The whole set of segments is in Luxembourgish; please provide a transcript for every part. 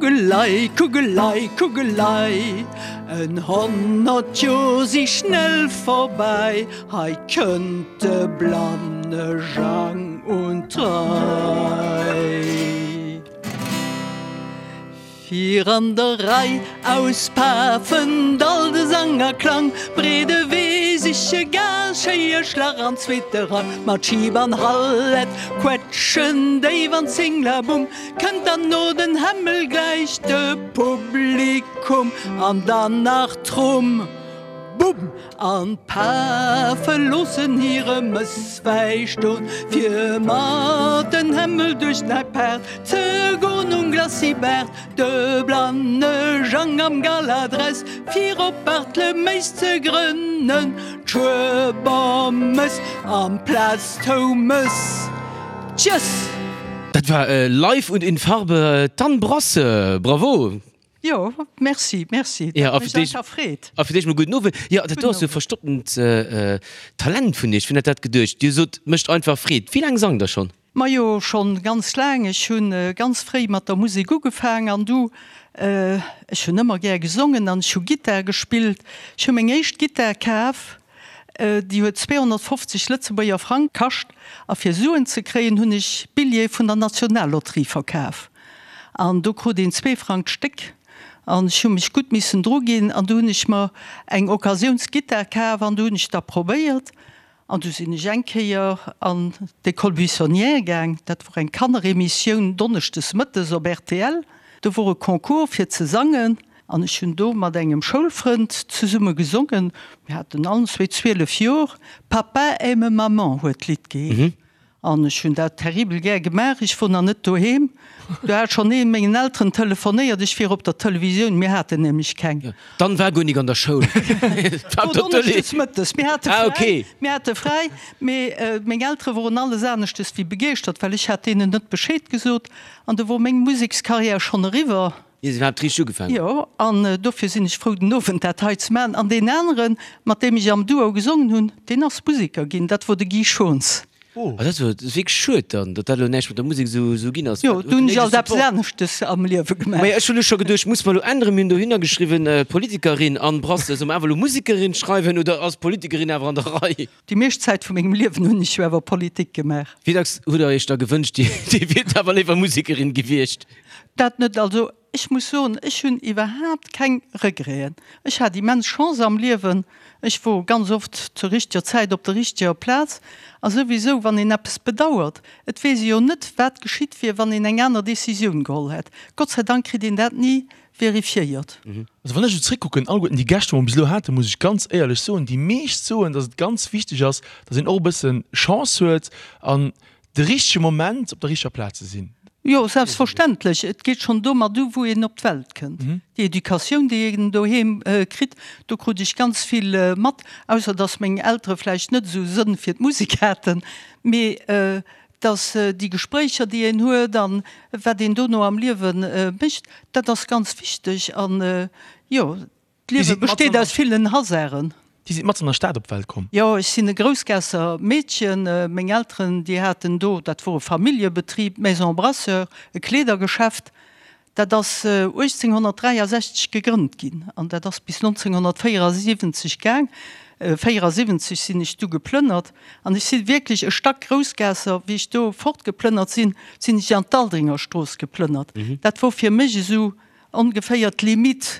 Kugelei, Kugelei, Kugelei, en 100 Joer si schnell vorbei, hei kënnt de blanne Jang un d'Rei. Fir an der Rei auspafend all de Sang a Klang, breede Wee siche gar schéie Schlag an zweete Rang, mat Schib an Hallett quetschen déif an Zinglabumm, kënnt dann no den Hämmel gläich de Publikum an dann nach Trumm, Bumm! An d'Pafe loossen hire Mësswäi ston, fir mat den Hämmel duerch d'Nei Paart ze gon. Um Glacis Baart de blanne Jang am Galadress, fir op Bartleméis ze grënnen d'Schuebermëss amplaz d'Houmes. Tjëss! Dat war live und in Farbe d'Anne Brasseur. Bravo! Jo, merci, merci. Dat huet mech einfach freet. A fir d'éischt mol gudden Owend. Jo, dat do ass jo verstopptent Talent vun Iech. Wien hätt dat geduecht? Dir sot, mécht einfach Freed. Wéi laang sangt Der schonn? Majo, schonn ganz laang. Ech hu ganz fréi mat der Musek ugefaang an du, ech hunn ëmmer gär gesongen an ech hu Gittar gespillt. Ech hu meng éischt Gittar kaf, déi huet 250 Lëtzebuerger Frang kascht a fir Suen ze kréien hunn ech Billjeeë vun der Nationallotterie verkaf an do krut een zwee Frang d'Stéck an ech hu mech gutt missen druginn an du hunn ech mer eng Occasiounsgittar kaf an du hunn ech da probéiert An du sinn ech eng Kéier an d'École buissonnière gaang, dat wor eng Kanneremissioun donneschdes mëttes op rtl. Do wor e Concours fir ze sangen an ech hunn do mat engem Schoulfrënd zesumme gesongen. Mir haten allen zwee 12 Jor. Papa aime maman huet d'Lidd geheescht. An ech hunn dat terribel gär gemaach. Ech wor nach net doheem, do hat schonn ee mengen Elteren telefonéiert, ech wier op der Televisioun. Mir haten nämlech keng. D'Anne war guer nik an der Schoul. War op der Tëlee. Donneschdes mëttes. Mir hate fräi. Mir hate fräi, mee meng Eltere woren alles aneschtes wéi begeeschtert, well ech hat deenen net Bescheed gesot. An du wor meng Musekskarriär schonn eriwwer. Ier se iwwerhaapt richteg ugefaangen huet. Jo, an dofir sinn ech frou, den Owend dat hei ze maachen. An deen aneren, mat deem ech am Duo gesongen hunn, deen ass Museker ginn, dat wor de Guy Schons. Oh, dat ass wierklech schued dann, datt dat elo näischt mat der Musek esou ginn ass. Jo, do hunn ech alt eppes aneschtes am Liewe gemaach. Majo, ech hunn elo scho geduecht, muss mer elo änneren? Mir hunn dohinner geschriwwen, Politikerin Anne Brasseur. Solle mer awer elo Musekerin schreiwen oder ass Politikerin awer an der Rei? Déi meescht Zäit vu mengem Liewen hunn ech jo awer Politik gemaach. Wéi dacks hutt Der Iech da gewënscht, Dir wiert awer léiwer Musekerin gewiescht? Dat net. Also ech muss soen, ech hunn iwwerhaapt keng Regreten. Ech hat immens Chance am Liewen. Ech wor ganz oft zur richteger Zäit op der richteger Plaz. A souwisou, wann een eppes bedauert, et weess ee jo net, wat geschitt wier, wann een eng aner Decisioun geholl hätt. Gott sei Dank kritt een dat ni verifiéiert. Also wann ech esou zréckkucken, alleguerten déi Gäscht, wou mer bis elo haten, muss ech ganz éierlech soen, déi meescht soen, dass et ganz wichteg ass, dass een och e bësse Chance huet an de richtege Moment op der richteger Plaz ze sinn. Jo, selbstverständlech. Et geet schonn domat u, wou een op d'Welt kënnt. Déi Educatioun, déi een doheem kritt, do krut ech ganz vill mat, ausser dass meng Eltere vläicht net esou Sënn fir d'Musek haten, mee dass déi Gespréicher, déi een huet an wat een dono am Liewe mécht, dat ass ganz wichteg. An jo, d'Liewe besteet aus villen Hasarden. Dir sidd matzen an der Stad op d'Welt komm? Jo, ech sinn e Groussgaasser Meedchen. Meng Elteren, déi haten do, dat wor e Familljebetrib, d'Maison Brasseur, e Kleedergeschäft. Dat ass 1863 gegrënnt ginn an dat ass bis 1974 gaang. 74 sinn ech du geplënnert an ech si wierklech e Stack Groussgaasser. Wéi ech do fortgeplënnert sinn, sinn ech an d'Aldringerstrooss geplënnert. Dat wor fir mech esou Ongeféier d'Limite.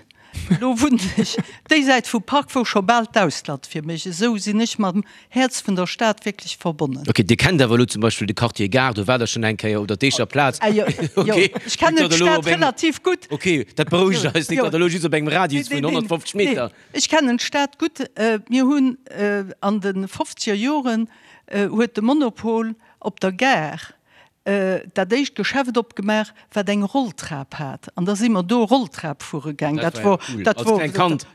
Elo wunnen ech déi Säit vum Park, wou scho bal d'Ausland fir mech. Esou sinn ech mam Häerz vun der Stad wierklech verbonnen. Ok, Dir kennt awer elo zum Beispill de Quartier Gare, do waart Der schonn eng Kéier, oder d'Eecher Plaz. Jo, ech kennen d'Stad relativ gutt. Ok, dat berouegt eis, net datt Der elo just op engem Radius vun 150 Meter. Nee, ech kennen d'Stad gutt. Mir hunn an de fofzeger Joren huet de Monopol op der Gare dat éischt Geschäft opgemaach, wat eng Rolltrap hat. An da si mer do Rolltrap fuere gaang. Dat wor, dat wor,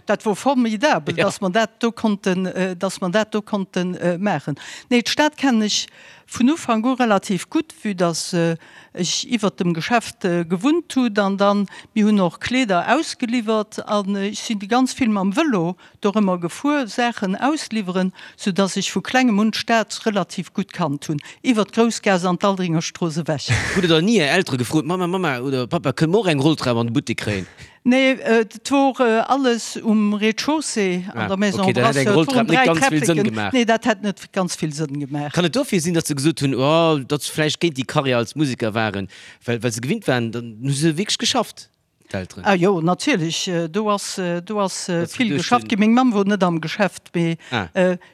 dat wor formidabel, dass mer dat do konnten, dass mer dat do konnte maachen. Nee, d'Stad kennen ech. vun Ufank u relativ gutt, vue dass ech iwwert dem Geschäft gewunnt hunn an dann, mir hunn och Kleeder ausgeliwwert an ech sinn ganz vill mam Vëlo dorëmmer gefuer, Saachen ausliwweren, sou dass ech vu klengem un d'Stad relativ gutt kannt hunn, iwwert d'Groussgaass an d'Aldringerstrooss ewech. Hutt Der dann ni Är Eltere gefrot, Mamma, Mamma oder Pappa, kënne mer och eng Rolltrap an de Buttek kréien? Nee, et wor alles um Rez-de-chaussée an der Maison Brasseur. Ok, dat hätt eng Rolltrap net ganz vill Sënn gemaach. Nee, dat hätt net ganz vill Sënn gemaach. Kann et dofir sinn, datt se gesot hunn, oh, datt se vläicht géint déi Karriär als Museker waren, well well se gewinnt waren, dann hu se wierklech geschafft, d'Elteren? Ah jo, natierlech, do ass, do ass vill geschafft ginn. Meng Mamm wor net am Geschäft, mee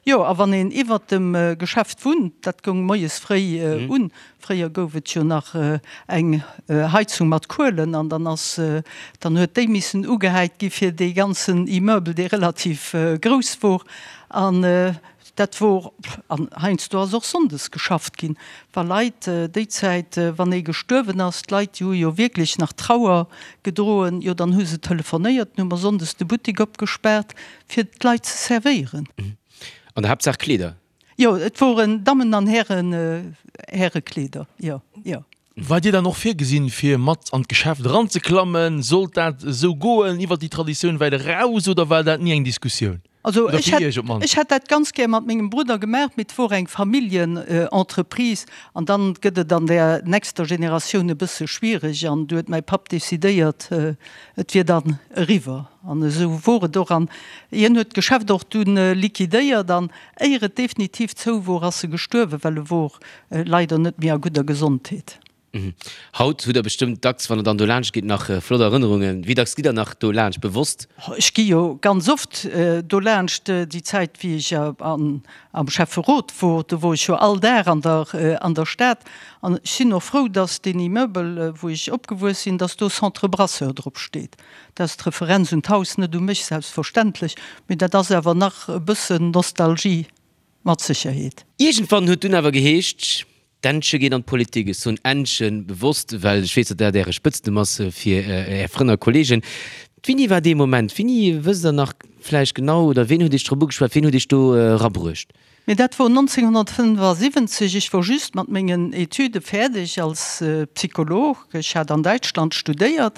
jo, a wann een iwwert dem Geschäft wunnt, dat goung moies fréi un, Fréier gouf et jo nach eng Heizung mat Kuelen an dann ass, dann huet déi missen ugehäit gi fir dee ganzen Immeuble, dee relativ grouss wor. An dat wor, an heiansdo ass och sonndes geschafft ginn, wa Leit déi Zäit, wann ee gestuerwen ass, d'Leit déi hu jo wierklech nach Trauer gedroen, jo dann hu se telefonéiert, dann hu mer sonndes de Buttek opgespaart fir d'Leit ze servéieren. An der Haaptsaach Kleeder. Jo, et woren Dammen an Hären, Härekleeder, jo, jo. War dir dann och virgesinn, fir mat an d'Geschäft eranzeklammen? Sollt dat esou goen, iwwer déi Traditioun wäit eraus, oder war dat ni eng Diskussioun? Also Oder ech fir hätt, iech op d'mannst? ech hätt dat ganz gär mat mengem Brudder gemaach, mee et wor eng Familljenentreprise an dann gëtt et an der nächster Generatioun e bësse schwiereg an du huet mäi Papp decidéiert, et wier dann eriwwer. An esou wor et och an hien huet d'Geschäft och dunn liquidéiert an Éier et definitiv zou wor, ass e gestuerwen, well e wor leider net méi a gudder Gesondheet. Haut hutt der bestëmmt dacks, wann der dann do laanscht gitt, nach flott Erënnerungen. Wéi dacks gitt der nach do laanscht, bewosst? Ech gi jo ganz oft do laanscht. Déi Zäit, wéi ech am Schäfferot wor, do wor ech jo all Dag an der an der Stad. An ech sinn och frou, dass deen Immeuble, wou ech opgewuess sinn, dass do Centre Brasseur drop steet. Dat ass d'Referenz un d'Haus, net u mech selbstverständlech, mee dat ass awer nach e bëssen Nostalgie mat Sécherheet. Iergendwann huet dunn awer geheescht, d'Ännche geet an d'Politik. Ech soen Ännchen bewosst, well ech weess, datt dat Äre Spëtznumm ass fir Är Frënn a Kolleegen. Wéini war dee Moment? Wéini, wësst Der nach vläicht genau, oder ween huet Iech drop ugeschwat, ween huet Iech do erabruecht? Mee dat wor 1975, ech wor just mat mengen Etüde fäerdeg als Psycholog, ech hat an Däitschland studéiert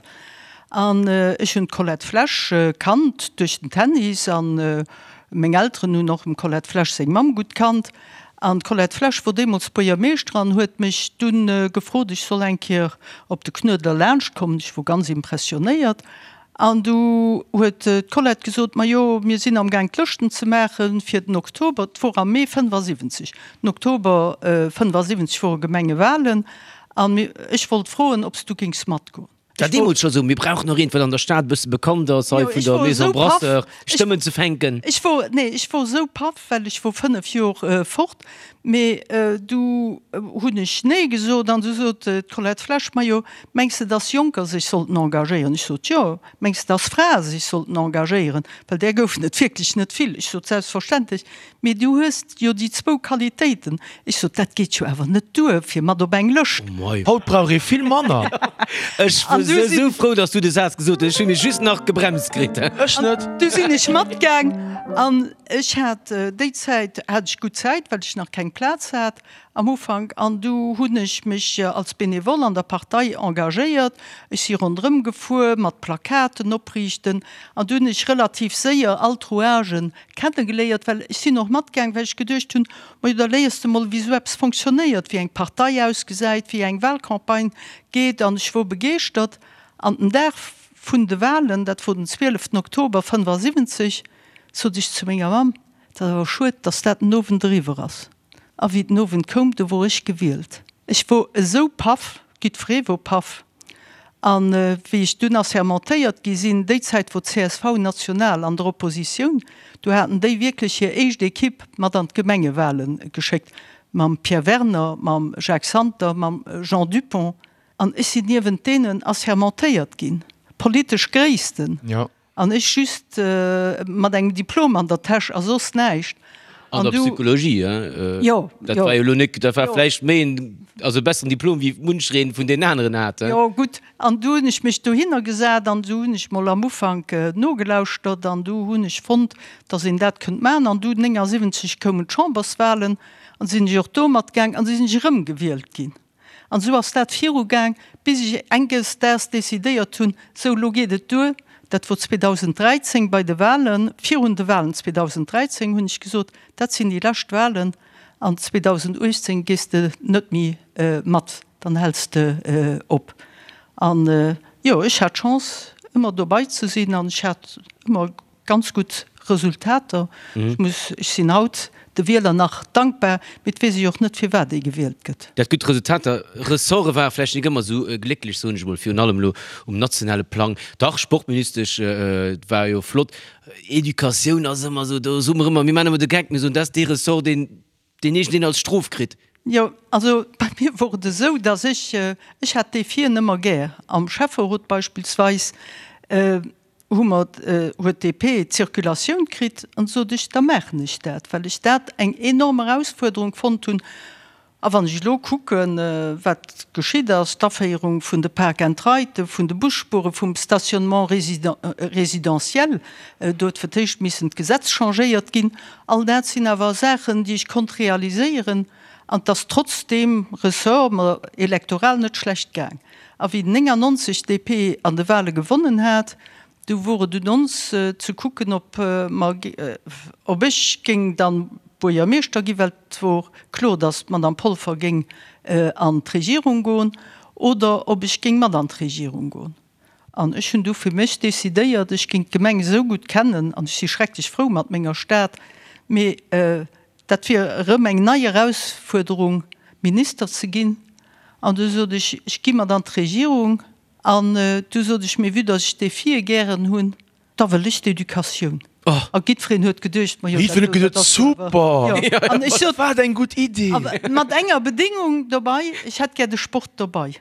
an ech hunn d'Colette Flesch kannt duerch den Tennis an meng Elteren hunn och dem Colette Flesch seng Mamm gutt kannt an d'Colette Flesch wor deemools Buergermeeschter an huet mech dunn gefrot, ech soll eng Kéier op de Knuedler laanscht kommen. Ech wor ganz impressionéiert An du huet d'Colette gesot, Majo, mir sinn amgaang d'Lëschten ze maache fir den Oktober. Et wor am Mee 75, den Oktober 75 wore Gemengewahlen an ech wollt froen, ob s du géings matgoen. War deemools scho sou, mir brauchen nach een, wat an der Stad e bësse bekannt ass, hei vun der Maison Brasseur, Stëmmen ze fänken. Ech wor, nee, ech wor esou paff, well ech wor 5 Jor fort. Mee du hunn ech nee gesot an du sot d'Colette Flesch, Majo, Mengs de, dass Jonker sech sollten engagéieren? Ech sot, Jo. Mengs de, dass Frae sech sollten engagéieren? Well där goufen et wierklech net vill. Ech sot, Selbstverständlech. Mee du hues jo déi zwou Qualitéiten. Ech sot, Dat geet jo awer net duer fir mat op eng Lëscht. Haut brauch ee vill manner. Ech wor esou frou, dass du de Saz gesot hues. Ech hu mech just nach gebremst kritt. Ech net. Du sinn ech matgaang an ech hat déi Zäit hat ech gutt Zäit, well ech nach keng Plaz hat. Am Ufank, an du hunn ech mech als Benevole an der Partei engagéiert. Ech si ronderëm gefuer mat Plakaten opriichten an du hunn ech relativ séier all d'Rouagen kennegeléiert, well ech sinn och matgaang, well ech geduecht hunn, majo da léiers de mol wéi esou eppes fonctionnéiert, wéi eng Partei ausgesäit, wéi eng Wahlcampagne geet an ech wor begeeschtert. An den Dag vun de Wahlen, dat wor den 12 Oktober 75, sot ech zu menger Mamm, Et ass awer schued, dass dat den Owend eriwwer ass. A wéi den Owend koum, du wor ech gewielt. Ech wor esou paff, giddferee wor paff. A wéi ech dunn assermentéiert gi sinn, déi Zäit wor csv national an der Oppositioun, du haten déi wierklech hir éischt Equipe mat an d'Gemengewale geschéckt, mam Pierre Werner, mam Jacques Santer, mam Jean Dupong. An ech sinn niewent deenen assermentéiert ginn, politesch Gréissten. An ech just mat engem Diplom an der Täsch a soss näischt. An der Psychologie, hein? Jo, jo. Dat war jo elo net, dat war vläicht méi en. Also e besseren Diplom wéi munchereen vun deenen aneren hat, he? Jo, gutt. An du hunn ech mech dohinner gesat an du hunn ech mol am Ufank nogelauschtert an du hunn ech fonnt, dass een dat kënnt maachen. An du 79 koumen d'Chamberswahlen an sinn ech och do matgaang an du sinn ech erëm gewielt ginn. An esou ass dat virugaang, bis ech enges Daags decidéiert hunn, sou elo geet et duer. Dat wor 2013 bei de Wahlen, virun de Wahlen 2013 hunn ech gesot, dat sinn déi lescht Wahlen an 2018 gees de net méi mat, dann häls de op. An jo, ech hat d'Chance ëmmer dobei ze sinn an ech hat ëmmer Ganz gutt Resultater. Ech muss, ech sinn haut de Wieler nach dankbar, mee et weess ech och net firwat ee gewielt gëtt. Dat gutt Resultater. Ressorte ware vläicht nik ëmmer esou glécklech, soen ech emol, virun allem elo um nationale Plang. Dach, Sportministesch war jo flott. Educatioun ass ëmmer esou, do soe mer ëmmer, mir maachen ëmmer de Geck, mir soen, dat ass dee Ressort, deen deen iergendeen als Strof kritt. Jo, also bei mir wor et esou, datt ech, ech hat Defien ëmmer gär. Am Schäfferot beispillsweis hu mer, huet d'DP d'Circulatioun kritt an sot ech, da maachen ech dat, well ech dat eng enorm Erausfuerderung fonnt hunn. A wann ech elo kucken, wat geschitt ass, d'Aféierung vun de Park and Riden, vun de Busspuren, vum Stationnement résidentiel, do huet fir d'éischt missen d'Gesetz changéiert ginn, all dat sinn awer Saachen, déi ech konnt realiséieren an et ass trotz deem Ressort mer elektoral net schlecht gaang. A wéi 99 d'DP an de Wahle gewonnen hat, Du wor et un ons ze kucken, ob mer, ob ech géing dann Buergermeeschter ginn, well et wor kloer, datt d'Madame Polfer géing an d'Regierung goen, oder ob ech géing mat an d'Regierung goen. An ech hunn du fir mech decidéiert, ech géing d'Gemeng esou gutt kennen, an ech si schrecklech frou mat menger Stad, mee dat wier erëm eng nei Erausfuerderung, Minister ze ginn. An du sot ech, ech gi mat an d'Regierung. An du sot ech, Mee vue dass ech d'Defie gären hunn, da wëll ech d'Educatioun. A giddfereen huet geduecht, Ma jo, dat do, dat ass jo awer. Jo. An ech sot. Wat eng gutt Idee! Awer mat enger Bedéngung dobei, Ech hätt gär de Sport dobei.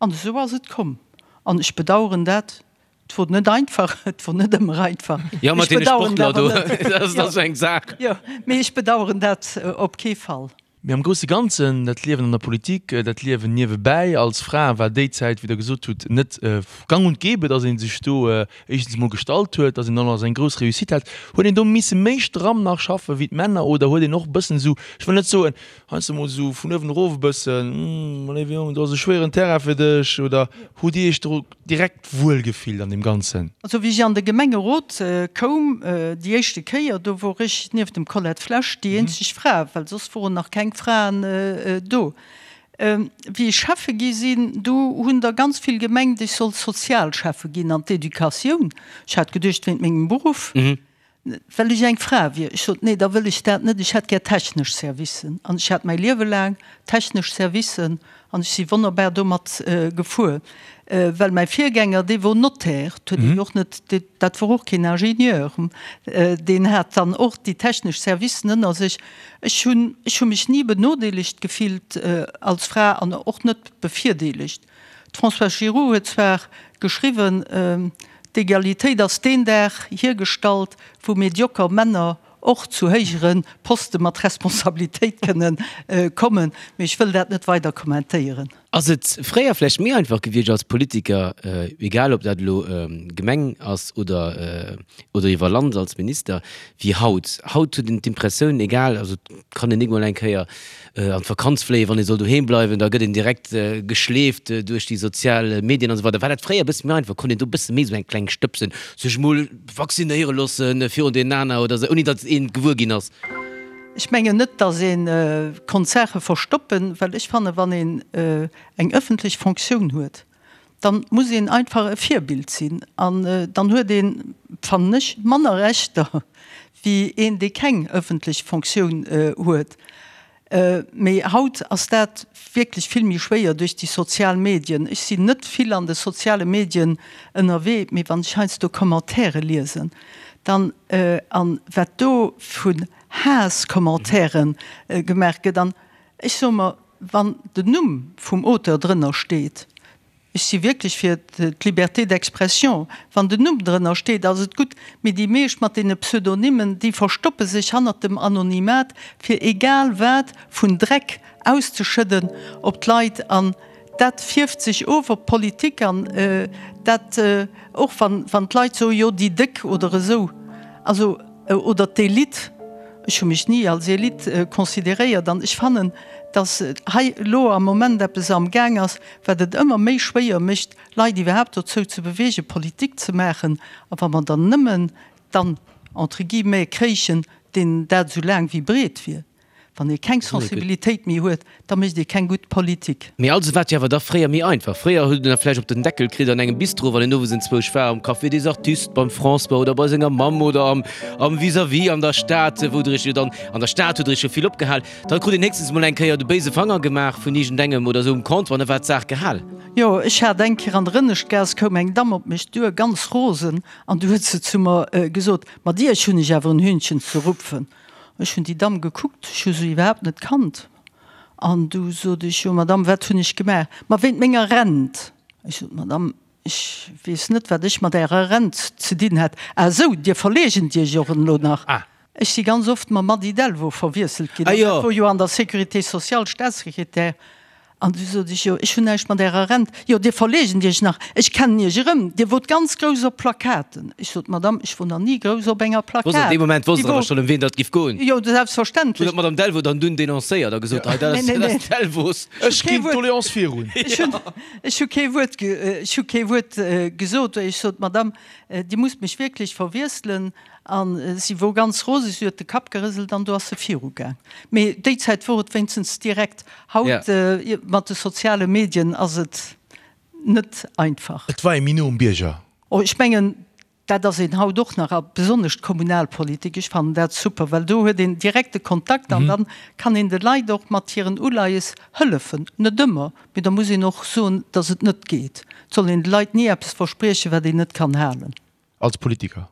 An esou ass et komm. An ech bedauern dat. Et wor net einfach, et wor net ëmmer einfach. Jo, mat deene Sportler do, dat ass esou eng Saach. Jo, mee ech bedauern dat op kee Fall. Mee am grousse Ganzen, dat Liewen an der Politik, dat Liewen niewebäi als Fra war déi Zäit, wéi Der gesot hutt, net gang und gäbe, datt ee sech do éischtens emol gestallt huet, datt een dann och eng grouss Réussite hat. Huet een do misse méi stramm nach schaffe wéi d'Männer oder huet een och e bëssen esou, ech wëll net soen, heiansdo emol esou vun uewen erof e bëssen, Hm, léiwe Jong, do ass e schwéieren Terrain fir dech oder hutt Dir Iech do direkt wuel gefillt an deem Ganzen? Also wéi ech an de Gemengerot koum déi éischte Kéier, do wor ech nieft dem Colette Flesch déi eenzeg Fra, well soss woren nach keng Fraen do. Wéi ech Schäffe gi sinn, do hunn der ganz vill gemengt, ech sollt Sozialschäffe ginn an d'Educatioun. Ech hat geduecht wéint mengem Beruff. Well ech eng Fra wier. Ech sot, Nee, da wëll ech dat net, ech hätt gär technesch Servicen. An ech hat mäi Liewe laang technesch Servicen an ech si wonnerbar domat gefuer. Well mäi Virgänger, dee wor Notaire, et huet een och net, dat wor och keen Ingenieur, deen hat dann och déi technesch Servicen ënner sech. Ech hunn, ech hu mech ni benodeelegt gefillt als Fra an och net bevirdeelegt. D'Françoise Giroud huet zwar geschriwwen, D'Egalitéit ass deen Dag hiergestallt, wou medioker Männer och zu héijere Poste mat Responsabilitéit kënne kommen, mee ech wëll dat net weider kommentéieren. Ass et fréier vläicht méi einfach gewiescht als Politiker, egal ob dat elo Gemeng ass oder oder iwwer Land als Minister, wéi haut? Haut huet een d'Impressioun, egal, also et kann een nik mol eng Kéier an d'Vakanz fléien, wann ee soll doheem bleiwen, da gëtt een direkt geschleeft duerch déi sozial Medien an esou weider. War dat fréier e bësse méi einfach? Konnt een do e bësse méi esou eng kleng stëbsen, sech mol vaccinéiere loosse virun deenen aner oder esou, ouni datt een gewuer ginn ass? Ech mengen net, datt ee konnt Saache verstoppen, well ech fannen, wann een eng ëffentlech Fonctioun huet, dann muss een einfach e Virbild sinn an dann huet een, fannen ech, manner Rechter wéi een, dee keng ëffentlech Fonctioun huet. Mee haut ass dat wierklech vill méi schwéier duerch déi sozial Medien. Ech sinn net vill an de soziale Medien ënnerwee, mee wann ech heiansdo Commentaire liesen, dann, an wat do vun Haasscommentairen gemaach gëtt, an ech soe mer, Wann den Numm vum Auteur drënner steet, ech si wierklech fir d'Liberté d'expression, wann den Numm drënner steet, ass et gutt, mee déi meescht mat deene Pseudonymen, déi verstoppe sech hannert dem Anonymat, fir egal wat vun Dreck. auszeschëdden op d'Leit an dat fierft sech of op d'Politik an dat och wann wann d'Leit soen, jo déi Déck oder esou, also oder d'Elite, ech hu mech ni als Elite consideréiert an ech fannen, datt hei elo am Moment eppes am Gaang ass, wat et ëmmer méi schwéier mécht, Leit iwwerhaapt dozou ze beweegen, Politik ze maachen. A wa mer dann nëmmen dann entre guillemets kréichen, deen dat esou laang wéi breet wier. Wann ee keng Sensibilitéit méi huet, da mécht ee keng gutt Politik. Mee also war et jo awer da fréier méi einfach. Fréier huet een da vläicht op den Deckel kritt an engem Bistro, wann een owes enzwousch war, am Café des Artistes, beim François oder bei senger Mamm oder am am Vis-à-vis an der Stad, wou der iech jo dann, an der Stad hutt der iech jo vill opgehal. Da krut een héchstens mol eng Kéier de béise Fanger gemaach vun iergendengem oder esou um Comptoir an da war d'Saach gehal. Jo, ech hat eng Kéier an der Ënneschtgaass, koum eng Damm op mech duer, ganz rosen, an du huet se zu mer gesot, Mat Iech hunn ech awer en Hühnchen ze rupfen. Ech hunn déi Damm gekuckt, ech hu se iwwerhaapt net kannt. An du sot ech, Jo, Madame, wat hunn ech gemaach? Ma wéint menger Rent. Ech sot, Madame, ech weess net, wat ech mat Ärer Rent ze dinn hätt. Ah esou, Dir verleegent Iech och elo nach. Ech si ganz oft mam Mady Delvaux verwiesselt ginn. An dat wor jo an der Sécurité sociale Staatssekretär. An du sot ech, Jo, ech hunn näischt mat Ärer Rent. Jo, Dir verleegent Iech nach, ech kennen Iech erëm, Dir wot ganz grouss op Plakaten. Ech sot, Madame, ech wor nach ni grouss op enger Plakat. Wosst an deem Moment wosst Der awer schonn, ëm wien datt giff goen? Jo, selbstverständlech. Hutt Der d'Madame Delvaux dann dunn denoncéiert a gesot, Hei, dat ass, dat ass d'Delvaux. Ech ginn d'Doléance virun. Ech hunn, ech hu kee Wuert, ech hu kee Wuert gesot. Ech sot, Madame, Dir musst mech wierklech verwiesselen. A si wor ganz roseg, si huet de Kapp gerëselt an du ass se virugaang. Mee déi Zäit wor et wéinstens direkt. Haut mat de soziale Medien ass et net einfach. Et war ee méi no um Bierger. Oh, ech mengen, dat ass een haut och nach, a besonnesch d'Kommunalpolitik. Ech fannen dat super, well do huet een direkte Kontakt an dann kann een de Leit och mat hiren Uleies hëllefen. Net ëmmer, mee da muss een och soen, datt et net geet. Et soll een de Leit ni eppes verspriechen, wat een net kann halen. Als Politiker?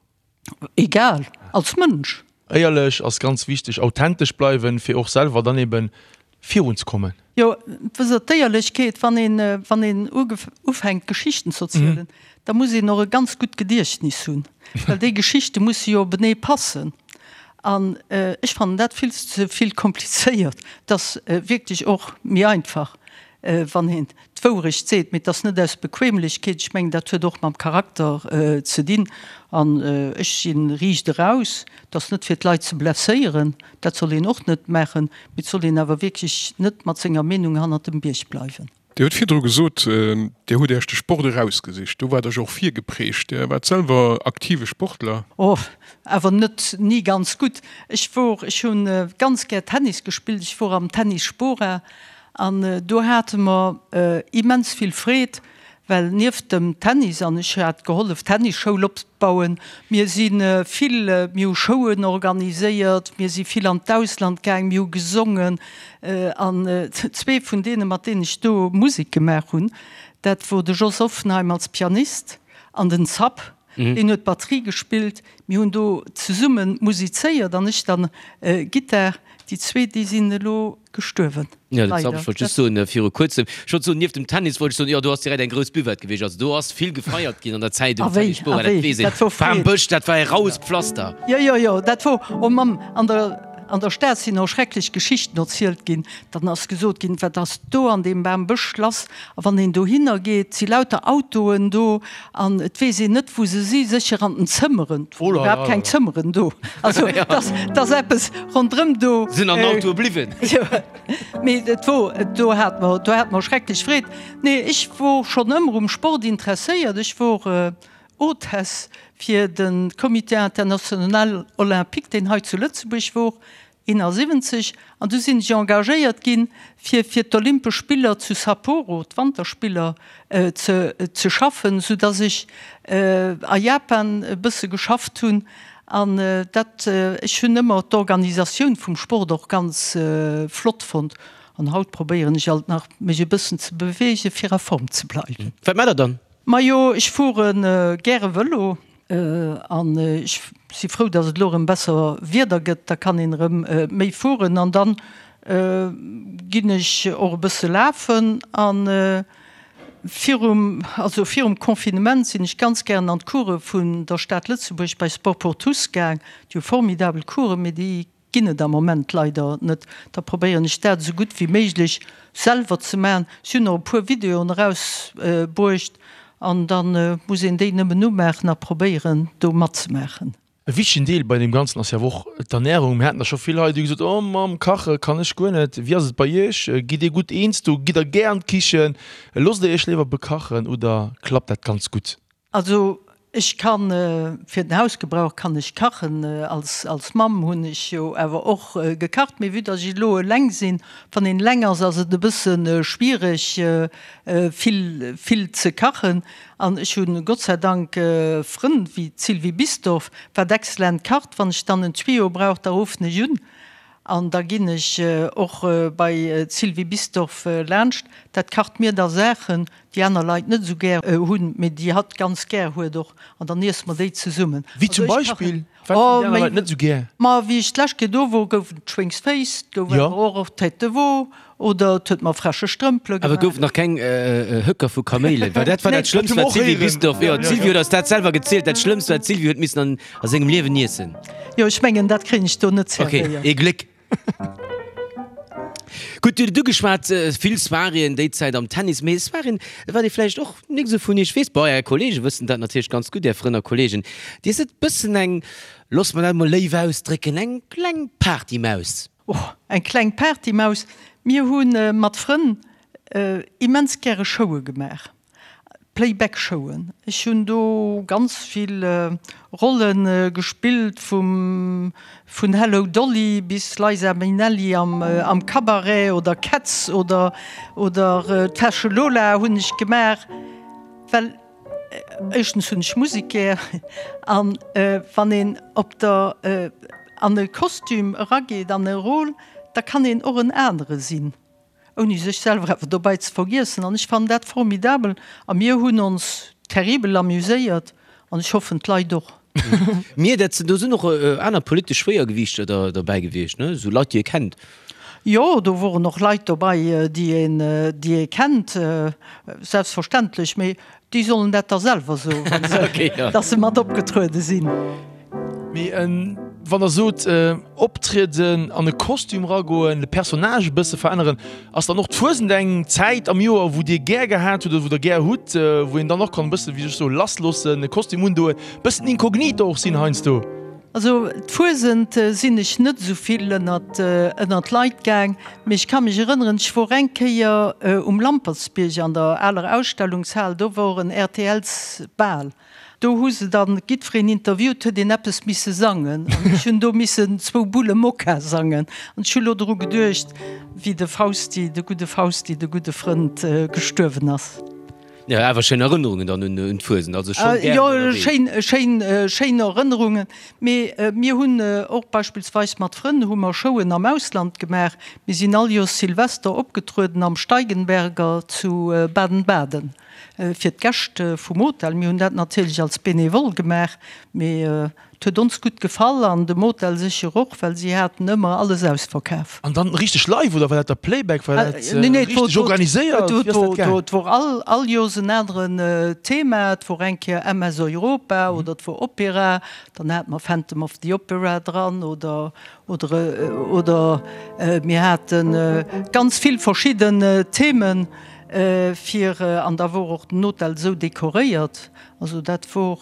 Egal, als Mënsch. Éierlech ass ganz wichteg, authentesch bleiwen, fir och selwer dann eben virun ze kommen. Jo, wësst Der, d'Éierlechkeet, wann een, wann een ufänkt Geschichten ze erzielen, da muss een och e ganz gutt Gediechtnis hunn, well déi Geschichte musse jo openee passen. An ech fannen dat vill ze vill komplizéiert. Et ass wierklech och méi einfach, wann een d'Wourecht seet, mee et ass net aus Bequemlechkeet, ech mengen, dat huet och mam Charakter ze dinn. An ech si riicht eraus, et ass net fir d'Leit ze blesséieren, dat soll een och net maachen, mee et soll een awer wierklech net mat senger Meenung hannert dem Bierg bleiwen. Dir hutt virdru gesot, Dir hutt Iech de Sport erausgesicht. Do waart Der jo och virgeprägt. Dir waart selwer aktive Sportler. Oh, awer net ni ganz gutt. Ech wor, ech hu ganz gär Tennis gespillt. Ech wor am Tennis Spora An do hate mer immens vill Freed, well nieft dem Tennis, an ech hat gehollef d'Tennisschoul opbauen, mir si vill, mir hu Showen organiséiert, mir si vill an d'Ausland gaang, mir hu gesongen. An zwee vun deene mat deenen ech do Musek gemaach hunn, dat wor de Jos Offenheim als Pianist an den Zapp, deen huet Batterie gespillt. Mir hunn do zesumme musizéiert an ech dann Gittar. Déi zwee, déi sinn elo gestuerwen. Jo, dat ech wollt just soen, viru kuerzem, ech wollt soen, nieft dem Tennis wollt ech soen, jo, do ass direkt eng grouss Buvette gewiescht. Also do ass vill gefeiert ginn an der Zäit um Tennis Spora, dat weess een. Bam Bësch, dat war e raues Pflaster. Jo, jo, jo, dat wor, oh Mamm, an der, an der Stad sinn och schrecklech Geschichten erzielt ginn. Dann ass gesot ginn, wat ass do an deem Bam Bësch lass? A wann een dohinner geet, si lauter Autoen do an et weess een net, wou se si, sécher an den Zëmmeren. Et wor iwwerhaapt keng Zëmmeren do. Also et ass, et ass eppes ronderëm do. Sinn an den Autoe bliwwen. Jo, mee et wor, do hat mer, do hat mer schrecklech Freed. Nee, ech wor schonn ëmmer um Sport interesséiert. Ech wor Hôtesse fir de Comité International Olympique, deen hei zu Lëtzebuerg wor. 71, an du sinn ech engagéiert ginn, fir fir d'Olympesch Spiller zu Sapporo, d'Wanterspiller, ze ze schaffen, sou dass ech a Japan e bësse geschafft hunn. An dat, ech hunn ëmmer d'Organisatioun vum Sport och ganz flott fonnt. An haut probéieren ech alt nach, mech e bëssen ze beweegen, fir a Form ze bleiwen. Wat maacht der dann? Majo, ech fuere gäre Vëlo. An ech si frou, datt et elo erëm besser Wieder gëtt, da kann een erëm méi fueren. An dann ginn ech och e bësse lafen. A virum, also virum Confinement sinn ech ganz gären an d'Course vun der Stad Lëtzebuerg bei Sport pour tous gaang. Déi hu formidabel Coursen, mee déi. ginn et am Moment leider net. Da probéieren ech dat esou gutt wéi méiglech selwer ze maachen. Ech hunn och e puer Videoen erausbruecht an da muss een déi nëmmen umaachen a probéieren do matzemaachen. E wichtegen Deel bei deem Ganzen ass jo awer och d'Ernärung. Mir haten der scho vill hei, déi hu gesot, Oh mam Kache kann ech guer net. Wéi ass et bei Iech? Gitt Dir gutt eens do? Gitt Der gär an d'Kichen? Loosst Der Iech léiwer bekachen oder klappt dat ganz gutt? Also ech kann, fir den Hausgebrauch kann ech kachen. Als als Mamm hunn ech jo awer och gekacht. Mee vue dass ech elo eleng sinn, wann een eleng ass, ass et e bësse schwiereg vill vill ze kachen. An ech hunn Gott sei Dank Frënn wéi d'Sylvie Bisdorff, wat excellent kacht. Wann ech dann en Tuyau brauch, da ruffen ech un an da ginn ech och bei d'Sylvie Bisdorff laanscht. Dat kacht mir da Saachen, déi aner Leit net esou gär hunn, mee déi hatt ganz gär huet och, an dann iesse mer déi zesummen. Wéi zum Beispill? Wat hunn déi aner Leit net esou gär? Ma wéi ech d'lescht Kéier do wor, gouf et Schwéngsféiss, et gouf awer och Tête de veau oder et huet mer fresche Strëmpele gemaach. Awer gouf nach keng Höcker vu Kaméilen? Well dat war dat Schlëmmst, wat d'Sylvie Bisdorff, jo, d'Sylvie huet eis dat selwer gezielt, dat Schlëmmst, wat d'Sylvie huet missen an a sengem Liewen iessen. Jo, ech mengen, dat kréien ech do net zerwéiert. Ok, ee Gléck. Gutt, Dir hutt et ugeschwat, vill Soiréeën déi Zäit am Tennis, mee Soiréeën, wat ee vläicht och nik esou vun Iech weess, bon, Är Kollege wëssen dat natierlech ganz gutt, Är Frënn a Kollegen, Dir sidd bëssen eng, loosse mer dat emol léif ausdrécken, eng kleng Partymaus. Oh, eng kleng Partymaus. Mir hu mat Frënn immens gäre Showe gemaach. Playback-Showen. Ech hunn do ganz vill Rolle gespillt, vum vun Hello Dolly bis Liza Minnelli am am Cabaret oder Cats oder oder d'Fäsche Lola hunn ech gemaach, well éischtens hunn ech Musek gär an wann een op der an e Kostüm erageet, an e Rôle, da kann een och en anere sinn. Ouni sech selwer awer dobäi ze vergiessen. An ech fannen dat formidabel. A mir hunn ons terribel amuséiert an ech hoffen d'Leit och. Mir, dat sinn, do sinn och aner politesch Schwéiergewiichter der derbäi gewiescht, ne? Esou Leit, déi ee kennt. Jo, do woren och Leit dobei, déi een, déi ee kennt, selbstverständlech. Mee Déi sollen dat da selwer soen, wann se, dass se mat opgetruede sinn. Mee wann Der sot, optrieden, an e Kostüm eragoen, de Personnage e bësse veränneren, ass dann och d'Fuesent eng Zäit am Joer, wou Dir gär gehat hutt oder wou Der gär hutt, wou een dann och kann e bësse, wéi soll ech soen, lassloossen, e Kostüm undoen, e bëssen inkognito och sinn heiansdo? Also d'Fuesent sinn ech net esou vill ënnert ënnert d'Leit gaang, mee ech ka mech erënneren, ech wor eng Kéier um Lampertsbierg an der aler Ausstellungshal, do wor en RTLs Bal, do hu se dann giddfereen interviewt, huet een eppes misse sangen an ech hunn do missen zwou Bulle Mokka sangen an ech hu lo dru geduecht, wéi de Fausti, de gudde Fausti, de gudde Frënd gestuerwen ass. Jo, awer schéin Erënnerungen dann un d'Fuesent, also schonn gären ënnerwee. Jo, schéin, schéin, schéin Erënnerungen. Mee mir hunn och beispillsweis mat Frënn hu mer Showen am Ausland gemaach. Mir sinn all Joers Silvester opgetrueden am Steigenberger zu Baden-Baden fir d'Gäscht vum Hotel. Mir hunn dat natierlech als Benevole gemaach, mee Et huet ons gutt gefall an dem Hotel sécher och, well si haten ëmmer alles ausverkaf. An dann richteg live oder war dat da Playback? War dat richteg organiséiert? Wéi ass dat gaang? Et wor all all Joers en aneren Thema. Et wor eng Kéier MS Europa oder et wor Opera. Dann hate mer Phantom of the Opera dran oder oder oder mir hate ganz vill verschidden Themen fir an da wor och den Hotel esou dekoréiert. Also dat wor.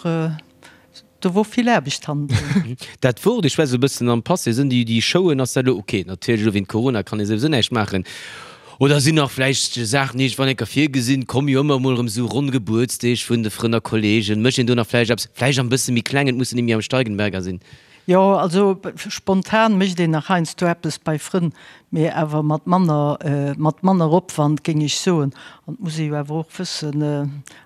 Do wor vill Aarbecht hannendrun. Dat wor, ech schwätze e bëssen am Passé, sinn déi déi Showen, ass dat elo ok, natierlech elo wéint Corona kann ee souwisou näischt maachen, oder sinn nach vläicht Saachen iergendwann eng Kéier virgesinn, komme jo ëmmer emol erëm esou ronn Gebuertsdeeg vun de Frënn a Kollegen, mécht een do nach vläicht eppes, vläicht am bësse méi klengen, et mussen net méi am Steigenberger sinn? Jo, also spontan mécht een nach heiansdo eppes bei Frënn, mee awer mat manner, mat manner Opwand, géing ech soen. An et muss ee jo awer och wëssen,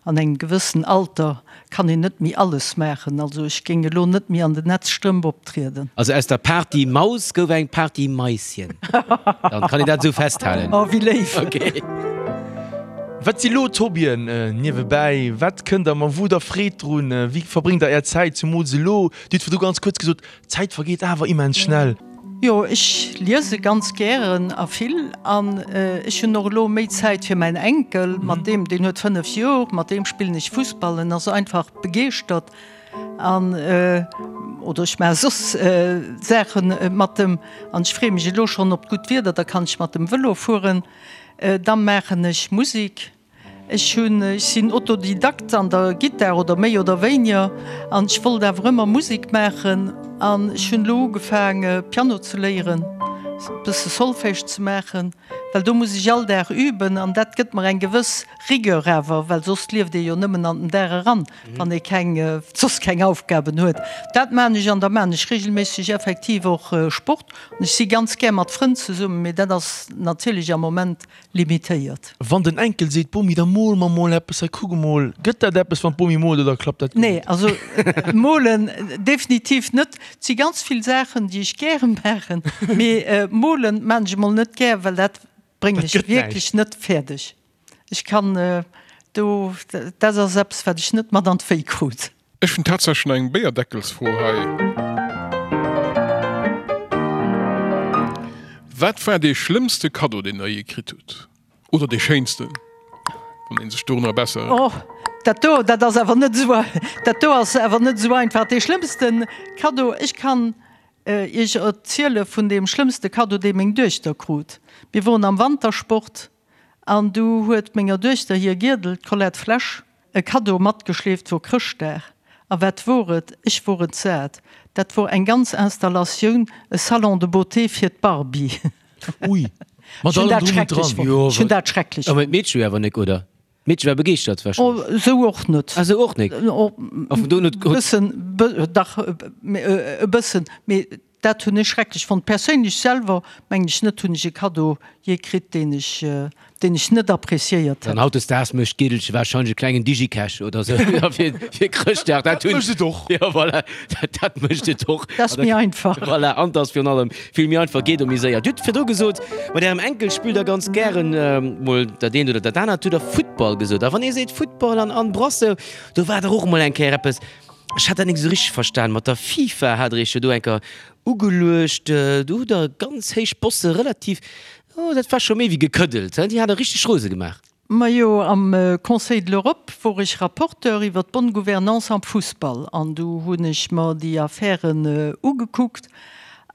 An engem gewëssen Alter kann een net méi alles maachen. Also ech géing elo net méi an den Netzstrëmp optrieden. Also aus der Party Maus gouf eng Party Maischen. Dann kann een dat esou festhalen. Oh, wéi léif! Ok. Wat si lo d'Hobbyen niewebäi? Wat kënnt der mat? Wou hutt der Freed drun? Wéi verbréngt der är Zäit, zumools elo? Dir hutt virdru ganz kuerz gesot, D'Zäit vergeet awer immens schnell. Jo, ech liese ganz gären a vill an ech hunn och elo méi Zäit fir mäin Enkel, mat deem, deen huet 5 Jor, mat deem spillen ech Fussball, en ass einfach begeeschtert an. Oder ech maache soss Saache mat em. An ech freeë mech elo schonn op d'gutt Wieder, da kann ech mat dem Vëlo fueren. Da maachen ech Musek. Ech hunn, ech sinn Autodidakt an der Gittar oder méi oder wéiniger an ech wollt awer ëmmer Musek maachen an ech hunn elo ugefaang Piano ze léieren, e bësse Solfège ze maachen, well do muss ech all Dag üben an dat gëtt mer eng gewëss Rigueur awer, well soss lieft ee jo nëmmen an den Dag eran, wann ee keng, soss keng Aufgaben huet. Dat maan ech an da maan ech regelméisseg effektiv och Sport an ech si ganz gär mat Frënn zesummen, mee dat ass natierlech am Moment limitéiert. Wann den Enkel seet, Bomi, da mol mer mol eppes, hei kuck emol, gëtt dat eppes wann d'Bomi moolt oder klappt dat guer Nee, net? also molen definitiv net. Et si ganz vill Saachen, déi ech gäre maachen, mee molen maan ech emol net gär, well dat bréngen Dat ech gëtt wierklech näischt. net fäerdeg. Ech kann do, dat ass eppes wat ech net mat an d'Wéi krut. Ech hunn tatsächlech nach eng Béierdeckelsfro hei. Wat war dee schlëmmste Kaddo, deen der jee kritt hutt? Oder dee schéinsten, wann ee sech dorunner besser. Oh, dat do, dat ass awer net esou, dat do ass awer net esou einfach. Dee schlëmmste Kaddo, ech kann Iech erziele vun deem schlëmmste Kaddo, dee meng Duechter krut. Mir woren am Wantersport an du huet menger Duechter hir Giedel, d'Colette Flesch, E Kaddo matgeschleeft wor Chrëschtdag. A wat wor et? Ech wor entsat. Dat wor eng ganz Installatioun, e Salon de beauté fir d'Barbie. Ui, mat Ech hunn allem dat drum und schrecklech dran. fonnt. Jo, Ech hunn dat schrecklech awer fonnt. d'Meedche jo awer nek, oder? D'Meedche war begeeschtert Oh, wahrscheinlech. esou och net. Ah, esou och nek. Oh, A vun do un huet. bëssen, dach, e bëssen, mee Dat hunn ech schrecklech fonnt. Perséinlech selwer mengen ech net, hunn ech e Kaddo jee kritt, deen ech, deen ech net appréciéiert An hätt. hautdesdaags mécht d'Gidelche wahrscheinlech e klengen Digicash oder sou fir, fir Chrëschtdag. Dat Dat hunn. mécht et och. Jo, voilà, dat, dat mécht et och. Dat ass méi einfach. Voilà, an 't ass virun allem vill méi einfach, geet och méi séier. Dir hutt virdru gesot, mat Ärem Enkel spillt Der ganz gären mol dat eent oder dat anert. Hutt Der Futtball gesot. A wann ee seet Futtball an Anne Brasseur, do war dach och emol eng Kéier eppes, Ech hat dat nik esou richteg verstan. Mat der FIFA hat der iech jo do enker ugeluecht. Do hutt der ganz héich Bosse relativ, oh dat war scho méi wéi gekëddelt, hein, déi hat der richteg rose gemaach. Majo, am Conseil de l'Europe wor ech Rapporteur iwwer d'bonne gouvernance am Fussball an do hunn ech mer déi Affären ugekuckt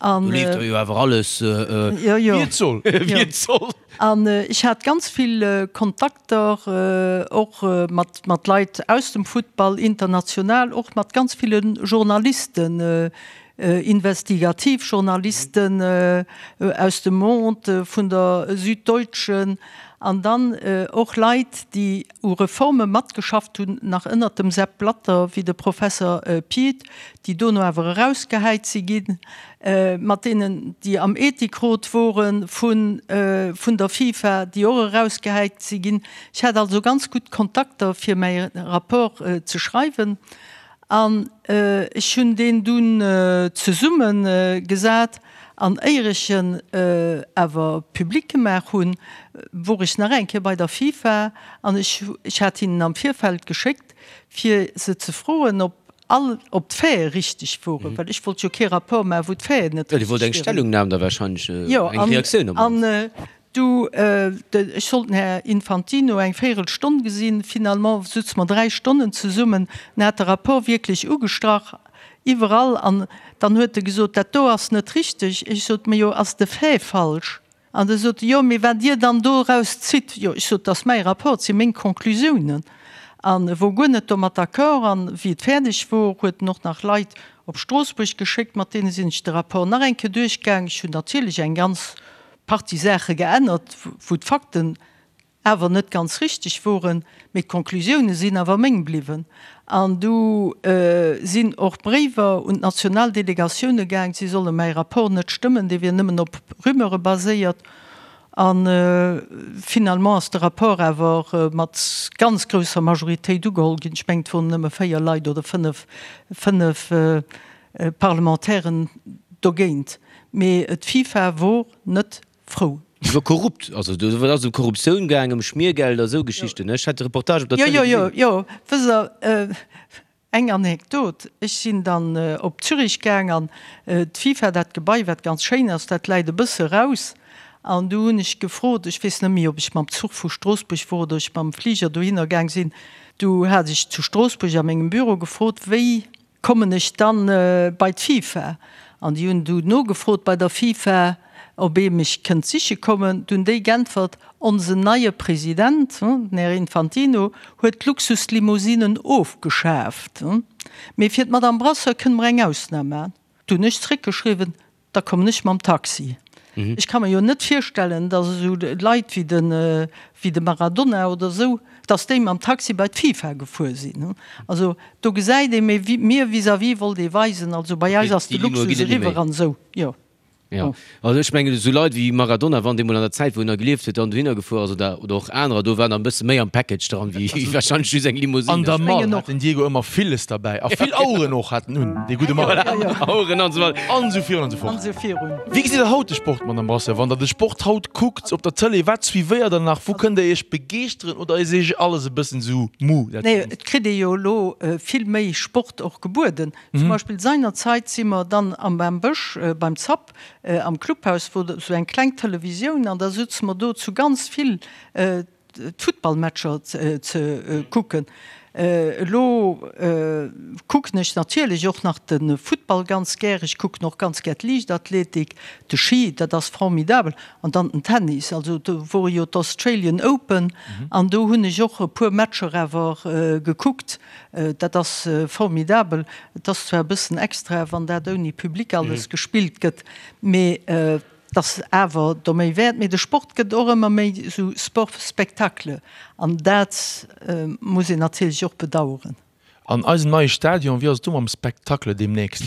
an. Do leeft der jo awer alles wéi et soll. Wéi et soll. An ech hat ganz vill Kontakter, och mat Leit aus dem Futtball, international, och mat ganz ville Journalisten, Investigativjournalisten aus dem Monde, vun der Süddeutschen, an dann och Leit, déi u Reforme matgeschafft hunn, nach ënnert dem Sepp Blatter, wéi de Professer Piet, déi dono awer erausgehäit si ginn. mat deenen, déi am Ethikrot wore vun der FIFA, déi och erausgehäit si ginn. Ech hat also ganz gutt Kontakter, fir mäi Rapport ze schreiwen. An ech hunn deen dunn zesumme gesat. An éier ech en awer public gemaach hunn, wor ech nach eng Kéier bei der FIFA an ech hat hinnen am Virfeld geschéckt, fir se ze froen, ob All ob d'Faite richteg woren, well ech wollt jo kee Rapport maachen, wou d'Faiten net Jo, Dir wollt richteg eng wieren. Stellungnam da wahrscheinlech, Jo, eng Reaktioun op an mannst. du, ech sollt den Här Infantino eng Véirelstonn gesinn, finalement sutze mer 3 Stonnen zesummen, en hat de Rapport wierklech ugestrach, iwwerall, an dann huet e gesot, dat do ass net richteg. Ech sot, Majo, ass de Fait falsch? An da sot e, Jo, mee wat Dir dann doraus zitt? Jo, ech sot, 't ass mäi Rapport, 't si meng Conclusiounen. An e wor guer net domat d'accord. An wéi et fäerdeg wor, huet en och nach Leit op Stroossbuerg geschéckt, mat deene sinn ech de Rapport nach eng Kéier duerchgaang. Ech hunn natierlech eng ganz Partie Saache geännert, wou d'Fakten awer net ganz richteg woren, mee d'Conclusioune sinn awer meng bliwwen. An du sinn och Bréiwer un d'national Delegatioune gaang, si solle mäi Rapport net stëmmen, dee wier nëmmen op Rumeure baséiert. A finalement ass de Rapport awer mat ganz grousser Majoritéit ugeholl ginn. Ech mengen, et woren nëmme 4 Leit oder 5, 5 Parlementairen dogéint. Mee d'FIFA wor net frou. Iwwer korrupt, also do ass ëm Korruptioun gaang, ëm Schmiergeld a sou Geschichten. Ech hat de Reportage op der Tëlee gesinn. Jo, jo, jo, wësst Der, eng Anekdot, Ech sinn dann op Zürich gaang an d'FIFA, dat Gebai, wat ganz schéin ass, dat läit e bësse raus. An du hunn ech gefrot, ech weess net méi, ob ech mam Zuch vu Stroossbuerg wor oder ech mam Fliger dohinner gaang sinn, du hat ech zu Stroossbuerg a mengem Büro gefrot, wéi. Kommen ech dann bei d'FIFA? An déi hunn du nogefrot bei der FIFA, ob ee mech kënnt siche kommen. Du hunn déi g'äntwert, Onsen neie President, den Här Infantino, huet d'Luxuslimousinen ofgeschaaft, mee fir d'Madame Brasseur kënne mer eng Ausnam maachen. Du hunn ech zréckgeschriwwen, Da kommen ech mam Taxi. Ech ka mer jo net virstellen, datt esou Leit wéi de, wéi de Maradona oder esou, datt déi mam Taxi bei d'FIFA gefuer sinn. Also do gesäit ee, mee mir vis-à-vis wollt ee weisen, also bei eis ass de Luxus eriwwer an esou, jo. Jo, also ech mengen esou Leit wéi Maradona, wann dee mol an der Zäit wou en nach gelieft huet, dann dohinner gefuer ass oder, oder och anerer, do waren der e bësse méi am Package dran wéi warscheinlech just eng Limousine. An der Mall hat den Diego ëmmer villes derbäi a vill Aueren och hat en un, dee gudde Mann. Voilà, Aueren an esou weider. An esou virun an esou fort. An esou virun. Wéi gesitt der haut de Sport, Madame Brasseur? Wann der de Sport haut kuckt op der Tëlee, wat suivéiert der nach? Wou kënnt der Iech begeeschteren oder ass Iech alles e bëssen esou mou, dat Nee, Ganzt? et kritt ee jo elo vill méi Sport och gebueden. Zum Beispill seinerzeit si mer dann am Bambësch beim Zapp am Clubhaus, wor esou eng kleng Televisioun an da sutze mer do zu ganz vill d'Futtballmatcher ze kucken. Elo kucken ech natierlech och nach de Futtball ganz gär. Ech kucken och ganz gär d'Liichtathletik, de Ski, dat ass formidabel, an dann den Tennis. Also do wore jo d'Australian Open an do hunn ech och e puer Matcher awer gekuckt. Dat ass formidabel. Et ass zwar e bëssen extra, wann dat ouni Public alles gespillt gëtt, mee et ass awer der méi wäert. Mee de Sport gëtt och ëmmer méi esou Sport spectacle an dat muss een natierlech och bedaueren. An eisem neie Stadion, wéi ass et do mam Spectacle deemnächst?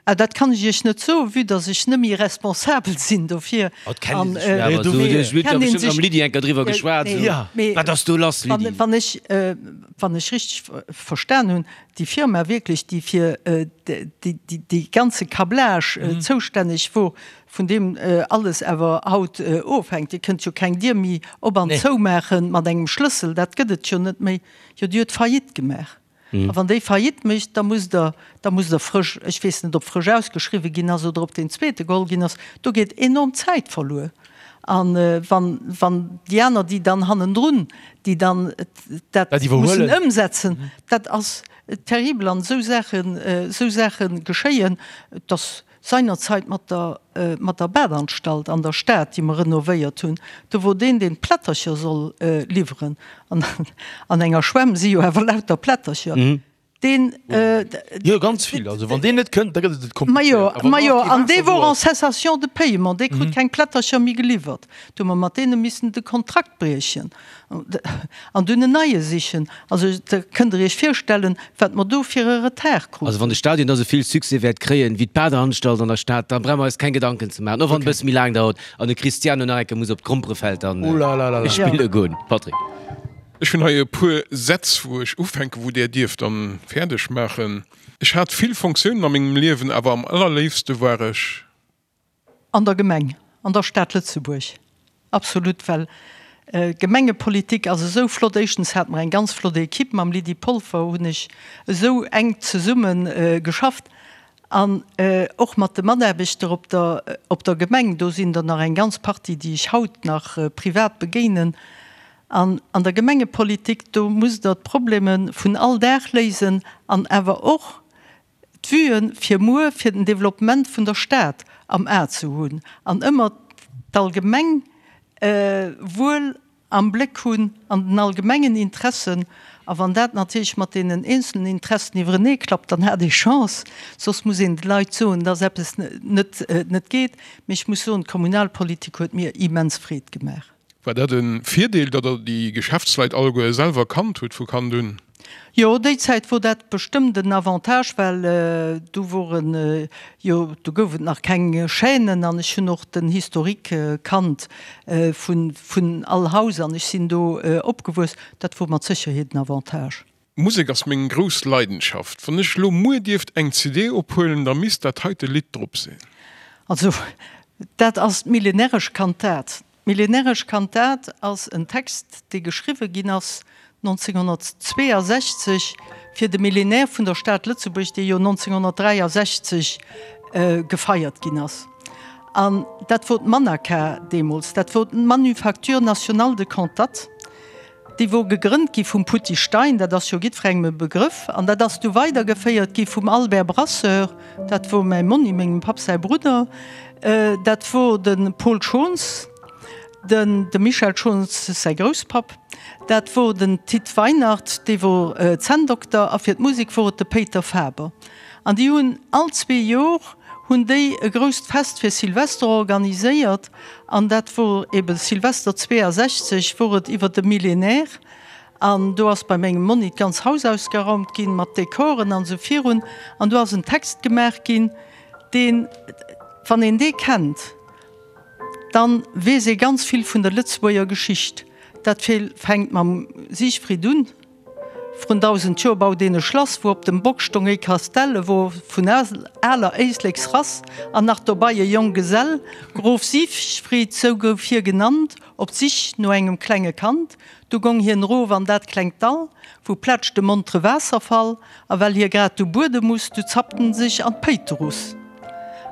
Ah, dat kann ech Iech net soen, vue dass ech net méi responsabel sinn dofir. Oh, et kennt ee sech jo awer esou. Ech huet jo bestëmmt mam Lydie eng Kéier driwwer geschwat, esou, Wat ass do lass, Lydie? Wann ech, wann ech richteg verstan hunn, déi Firma wierklech, déi fir dee ganze Câblage zoustänneg wor, vun deem alles awer haut ofhänkt, Dir kënnt jo keng Dier méi op an zoumaache mat engem Schlëssel, dat gëtt et jo net méi, jo, déi huet Faillite gemaach. A wann déi Faillite mécht, da musst Der, da musst Der frësch, ech weess net, ob frësch ausgeschriwwen ginn ass oder ob deen zweete geholl ginn ass, do geet enorm Zäit verluer. A wann, wann déi aner, déi dann hannendrun, déi dann dat mussen ëmsetzen, dat ass terribel. An esou Saachen, esou Saache geschéien. Et ass Seinerzeit mat der, mat der Badanstalt an der Stad, déi mer renovéiert hunn, do wor deen, deen d'Plättercher soll liwweren, an an enger Schwämm si jo awer lauter Plättercher, deen. Jo, ganz vill. Also wann deen net kënnt, da gëtt et komplizéiert. Majo, majo, an dee wor en cessation de paiement, dee krut keng Plättercher méi geliwwert. Do hu mer mat deene missen de Kontrakt briechen an dunn en neie sichen. Also da kënnt Der Iech virstellen, wat mer do fir e Retard kruten. Also wann de Stadion da sou vill Succès wäert kréien wéi d'Badeanstalt an der Stad, da brauche mer eis keng Gedanken ze maachen, och wann et e bësse méi laang dauert an de Cristiano nach eng Kéier muss op d'Gromperefeld dann spille goen. Patrick. Ech hunn hei e puer Sätz, wou ech ufänken, wou Där dierft dann fäerdeg maachen. Ech hat vill Fonctiounen a mengem Liewen, awer am allerléifste war ech. An der Gemeng, an der Stad Lëtzebuerg, absolut, well Gemengepolitik ass esou flott. Éischtens hate mer eng ganz flott Equipe, mam Lydie Polfer hunn ech esou enk zesumme geschafft an och mat de Mataarbechter op der, op der Gemeng, do sinn der nach eng ganz Partie, déi ech haut nach privat begéinen. An an der Gemengepolitik, do musst Der d'Probleme vun all Dag léisen an awer och d'Vuen fir muer, fir den Développement vun der Stad am A ze hunn an ëmmer d'allgemeng Wuel am Bléck hunn an den allgemengen Interessen. A wann dat natierlech mat deenen eenzelen Interessen iwwerenee klappt, dann hat ee Chance. Soss muss een de Leit soen, dass eppes net net geet. Mee ech muss soen, d'Kommunalpolitik huet mir immens Freed gemaach. War dat e Virdeel, datt Der déi Geschäftsleit alleguer selwer kannt hutt vu Kand un? Jo, déi Zäit wor dat bestëmmt en Avantage, well du woren jo, du gouf et nach keng Chaînen an ech hunn och den Historique kannt vun, vun all Haus an ech sinn do opgewuess. Dat wor mat Sécherheet en Avantage. Musek ass meng grouss Leidenschaft. Wann ech lo muer dierft eng CD ophuelen, da misst dat heite Lidd drop sinn. Also, dat ass d'Millenäresch Kantat. D'Millenäresch Kantat ass en Text, dee geschriwwe ginn ass 1962 fir de Millénaire vun der Stad Lëtzebuerg, dee jo 1963 gefeiert ginn ass. An dat wor d'Manaca deemools, dat wor d'Manufacture Nationale de Cantates. Déi wor gegrënnt gi vum Putty Stein, dat ass jo jiddwerengem e Begrëff, an dat ass du weidergeféiert gi vum Albert Brasseur, dat wor mäi Monni, mengem Papp säi Brudder, dat wor de Paul Schons, den dem Michel Schons säi Grousspapp, dat wor den Tit Weinert, dee wor Zänndokter, a fir d'Musek wor et de Péiter Faber. An déi hunn all zwee Jor hunn déi e grousst Fest fir Silvester organiséiert, an dat wor eben Silvester 62 wor et iwwer de Millénaire, an do ass bei mengem Monni d'ganz Haus ausgeraumt ginn mat Dekoren an esou virun, an do ass en Text gemaach ginn, deen, wann een dee kennt, dann weess ee ganz vill vun der Lëtzebuerger Geschicht. Dat fänkt mam Siegfried un. Vrun 1000 Joer baut een e Schlass, wou op dem Bock stong ee Kastell, e wor vun aler Éisleksrass an nach dobei e Jonggesell. Grof Siegfried, sou gouf hie genannt, op d'Sich no engem klenge Kand. Du gong hien erof an dat klengt Dall, wou plätscht e montere Waasserfall, a well hie grad du buede muss, du zappt en sech an d'Péiterus.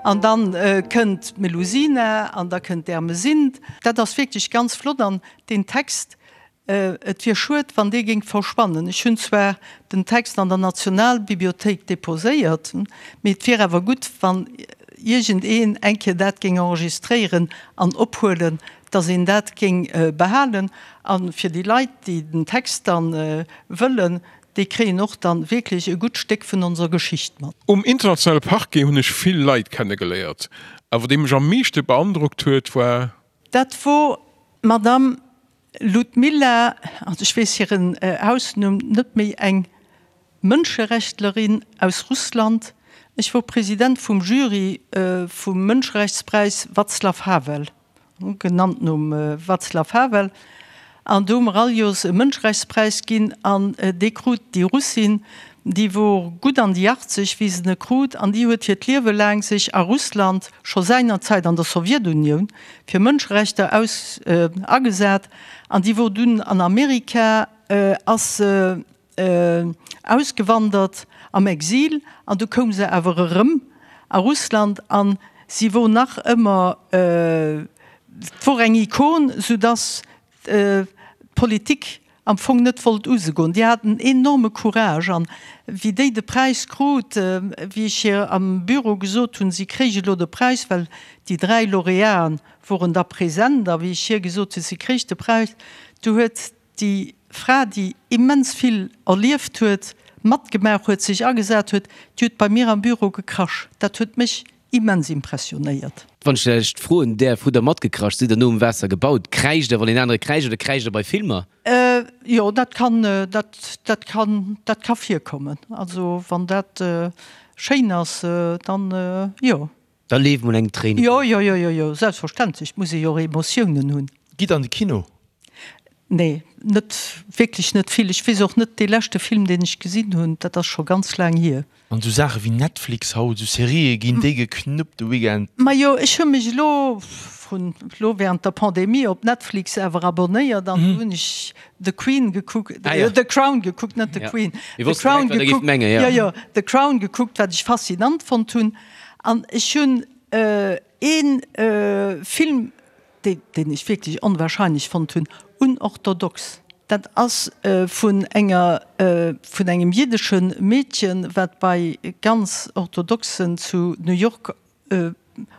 An dann kënnt d'Melusina an da kënnt d'Ermesinde. Dat ass wierklech ganz flott an deen Text, Et wier schued, wann dee géing verschwannen. Ech hunn zwar den Text an der Nationalbibliothéik deposéiert, mee et wier awer gutt, wann iergendeen eng Kéier dat géing enregistréieren an ophuelen, dass een dat géing behalen. A fir déi Leit, déi den Text da wëllen, déi kréien och dann wierklech e gutt Stéck vun onser Geschicht mat. Um internationale Parquet hunn ech vill Leit kennegeléiert, awer dee mech am meeschte beandrockt huet, war. Dat wor d'Madame Ludmilla, also ech weess hiren Hausnumm net méi, eng Mënscherechtlerin aus Russland. Ech wor President vum Jury vum Mënscherechtspräis Václav Havel, genannt nom Václav Havel, an do hu mer all Joers e Mënscherechtspräis ginn an dee krut déi Russin, déi wor gutt an déi 80 wéi se e krut an déi huet hiert Liewe laang sech a Russland, scho seinerzäit an der Sowjetunioun, fir Mënscherechter aus agesat an déi wor dunn an Amerika, ass se ausgewandert am Exil an du koum se awer erëm a Russland an si wor nach ëmmer, et wor eng Ikon, soudass d'Politik am Fong net wollt u se goen. Déi hat en enorme Courage an wéi déi de Präis krut, wéi ech hir am Büro gesot hunn, si kréich elo de Präis, well déi 3 Lauréaten woren da present, a wéi ech hir gesot hunn, si kréich de Präis, du huet déi Fra, déi immens vill erlieft huet, matgemaach huet, sech agesat huet, déi huet bei mir am Büro gekrasch. Dat huet mech Immens impressionéiert. Wann ech lech froen däerf, hutt der matgekracht? Sidd der nom Waasser gebaut? Kräischt der, wann een anere kräischt, oder kräischt der bei Filmer? Jo, dat kann, dat, dat kann, dat ka virkommen. Also wann dat schéin ass, dann jo. Da leeft mol eng Tréin Jo, jo, jo, jo, jo, selbstverständlech, et muss ee jo och Emotiounen hunn. Gitt an de Kino. Nee, net wierklech net vill. Ech weess och net, dee leschte Film, deen ech gesinn hunn, dat ass scho ganz laang hier. An esou Saache wéi Netflix haut, esou Serië ginn déi geknuppt de Weekend? Majo, ech hu mech elo vrun, elo während der Pandemie op Netflix awer abonnéiert an do hunn ech The Queen gekuckt, The Crown gekuckt, net The Queen, The Crown gekuckt, jo jo, The Crown gekuckt, wat ech faszinant fonnt hunn. An ech hunn ee Film, deen ech wierklech onwahrscheinlech fonnt hunn, unorthodox. Dat ass vun enger, vun engem jiddesche Meedchen, wat bei ganz Orthodoxen zu New York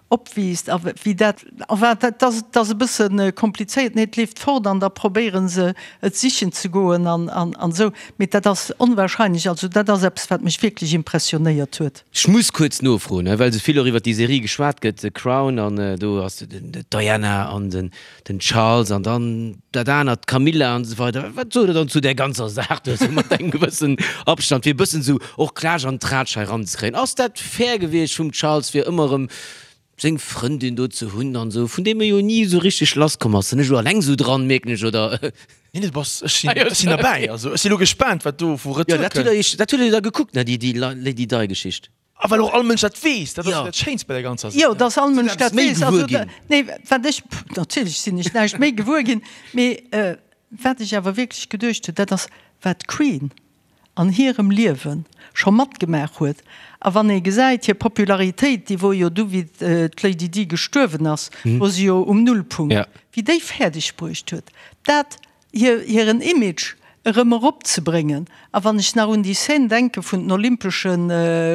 opwiisst a wéi dat, enfin dat ass, dat ass e bësse komplizéiert, nee, et leeft fort an da probéiere se et sichen ze goen an, an, an esou, mee dat ass onwahrscheinlech, also dat ass eppes wat mech wierklech impressionéiert huet. Ech muss kuerz nofroen, well esou vill och iwwer déi Serie geschwat gëtt, The Crown, an do ass d'Diana an den Charles an dann dat anert, d'Camilla an esou weider. Wat sot Der dann zu där ganzer Saach do esou mat engem gewëssen Abstand, fir e bëssen esou och Klatsch an Tratsch hei eranzekréien? Ass dat fair gewiescht vum Charles, fir ëmmer erëm seng Frëndin do ze hunn an esou, vun deem e jo ni esou richteg lass komm ass? Sinn ech elo alleng esou dran, mierken ech, oder? Nee, nee, du bass, ech sinn, ech sinn derbäi. Also ech si lo gespaant, wat do vu Retour kënnt. Jo, dat hutt Der jo da gekuckt, ne, déi, déi Lady Di-Geschicht. A well och all Mënsch dat weess, dat ass jo dat Schéinst bei der ganzer Saach. Jo, dass all Mënsch dat weess. Also, nee, wat ech, natierlech sinn ech näischt méi gewuer ginn, mee wat ech awer wierklech geduecht hunn, dat ass, wat d'Queen an hirem Liewe scho matgemaach huet, a wann ee gesäit, hir Popularitéit, déi wor jo du wéi d'Lady Di gestuerwen ass, wor se jo um Nullpunkt, wéi déi fäerdeg bruecht huet, dat. Hiren Image erëm eropzebréngen. A wann ech nach un déi Scène denke vun den Olympesche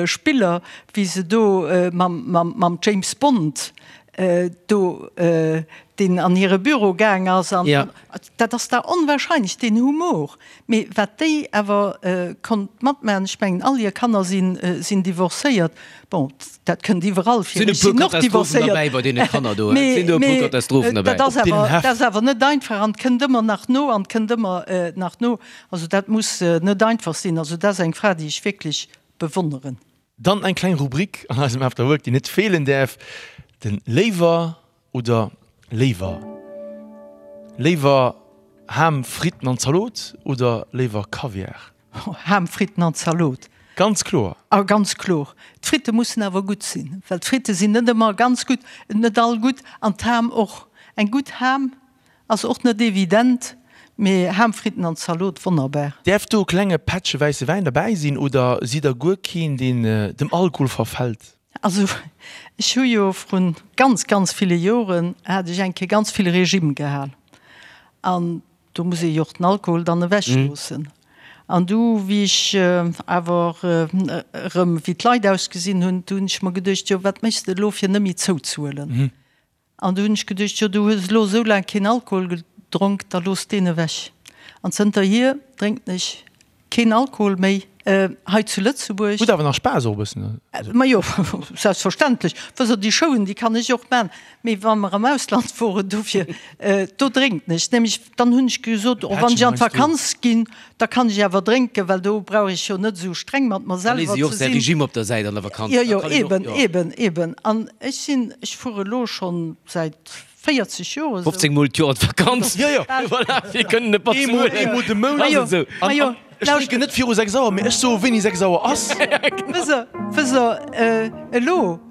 Spiller, wéi se do mam James Bond do, deen an hire Büro gaang ass, an dat ass da onwahrscheinlech, deen Humor. Mee wat déi awer konnt matmaachen, ech mengen all hir Kanner sinn divorcéiert, bon dat kënnt iwwerall vir, ech sinn och divorcéiert, mee dat ass awer, dat ass awer net einfach an kënnt ëmmer nach no an kënnt ëmmer nach no. Also dat muss net einfach sinn. Also dat ass eng Fra déi ech wierklech bewonneren. Dann eng kleng Rubrik an eisem After Work, déi net feelen däerf, den Léiwer Oder léiwer léiwer Ham, Fritten an Zalot oder léiwer Kaviar? Ham, Fritten an Zalot. Ganz kloer. A ganz kloer. D'Fritte mussen awer gutt sinn, well d'Fritte sinn net ëmmer ganz gutt, net all gutt, an d'Ham och. Eng gutt Ham ass och net evident, mee Ham, Fritten an Zalot, wonnerbar. Däerf do e klenge Pättche wäisse Wäin derbäi sinn oder sidd der guer keen, deen dem Alkohol verfält? Also ech hu jo vrun ganz, ganz ville Joren hat ech eng Kéier ganz vill Régime gehal an do muss ee jo och den Alkohol dann ewech loossen. An du wéi ech awer erëm wéi d'Leit ausgesinn hunn, du hunn ech mer geduecht, jo wat méchs de elo fir net méi zouzehuelen? An du hunn ech geduecht, jo du hues elo esou laang keen Alkohol gedronk, da looss deen ewech. An zënterhier drénken ech keen Alkohol méi hei zu Lëtzebuerg. Huet awer nach Spaass och e bëssen. Majo, selbstverständlech. Wësst Der, déi Showen, déi kann ech och man. Mee wa mer am Ausland woren, dofir, do drénken ech nämlech. Dann hunn ech gesot, oh wann ech an d'Vakanz ginn, da kann ech awer drénken, well do brauch ech jo net esou streng mat mer selwer ze sinn. Da léisst ee jo och säi Regime op der Säit an der Vakanz. Jo, jo, eben, eben, eben. An ech sinn, ech fuere elo schonn säit 40 Joer esou. 15 mol d'Joer an d'Vakanz. Jo, jo. Voilà, fir kënnen e Eemol, eemol de Mount. Majo, majo. Ech drénken net viru 6 Auer, mee ech soe wéini 6 Auer ass. Wësst Der, wësst Der, elo,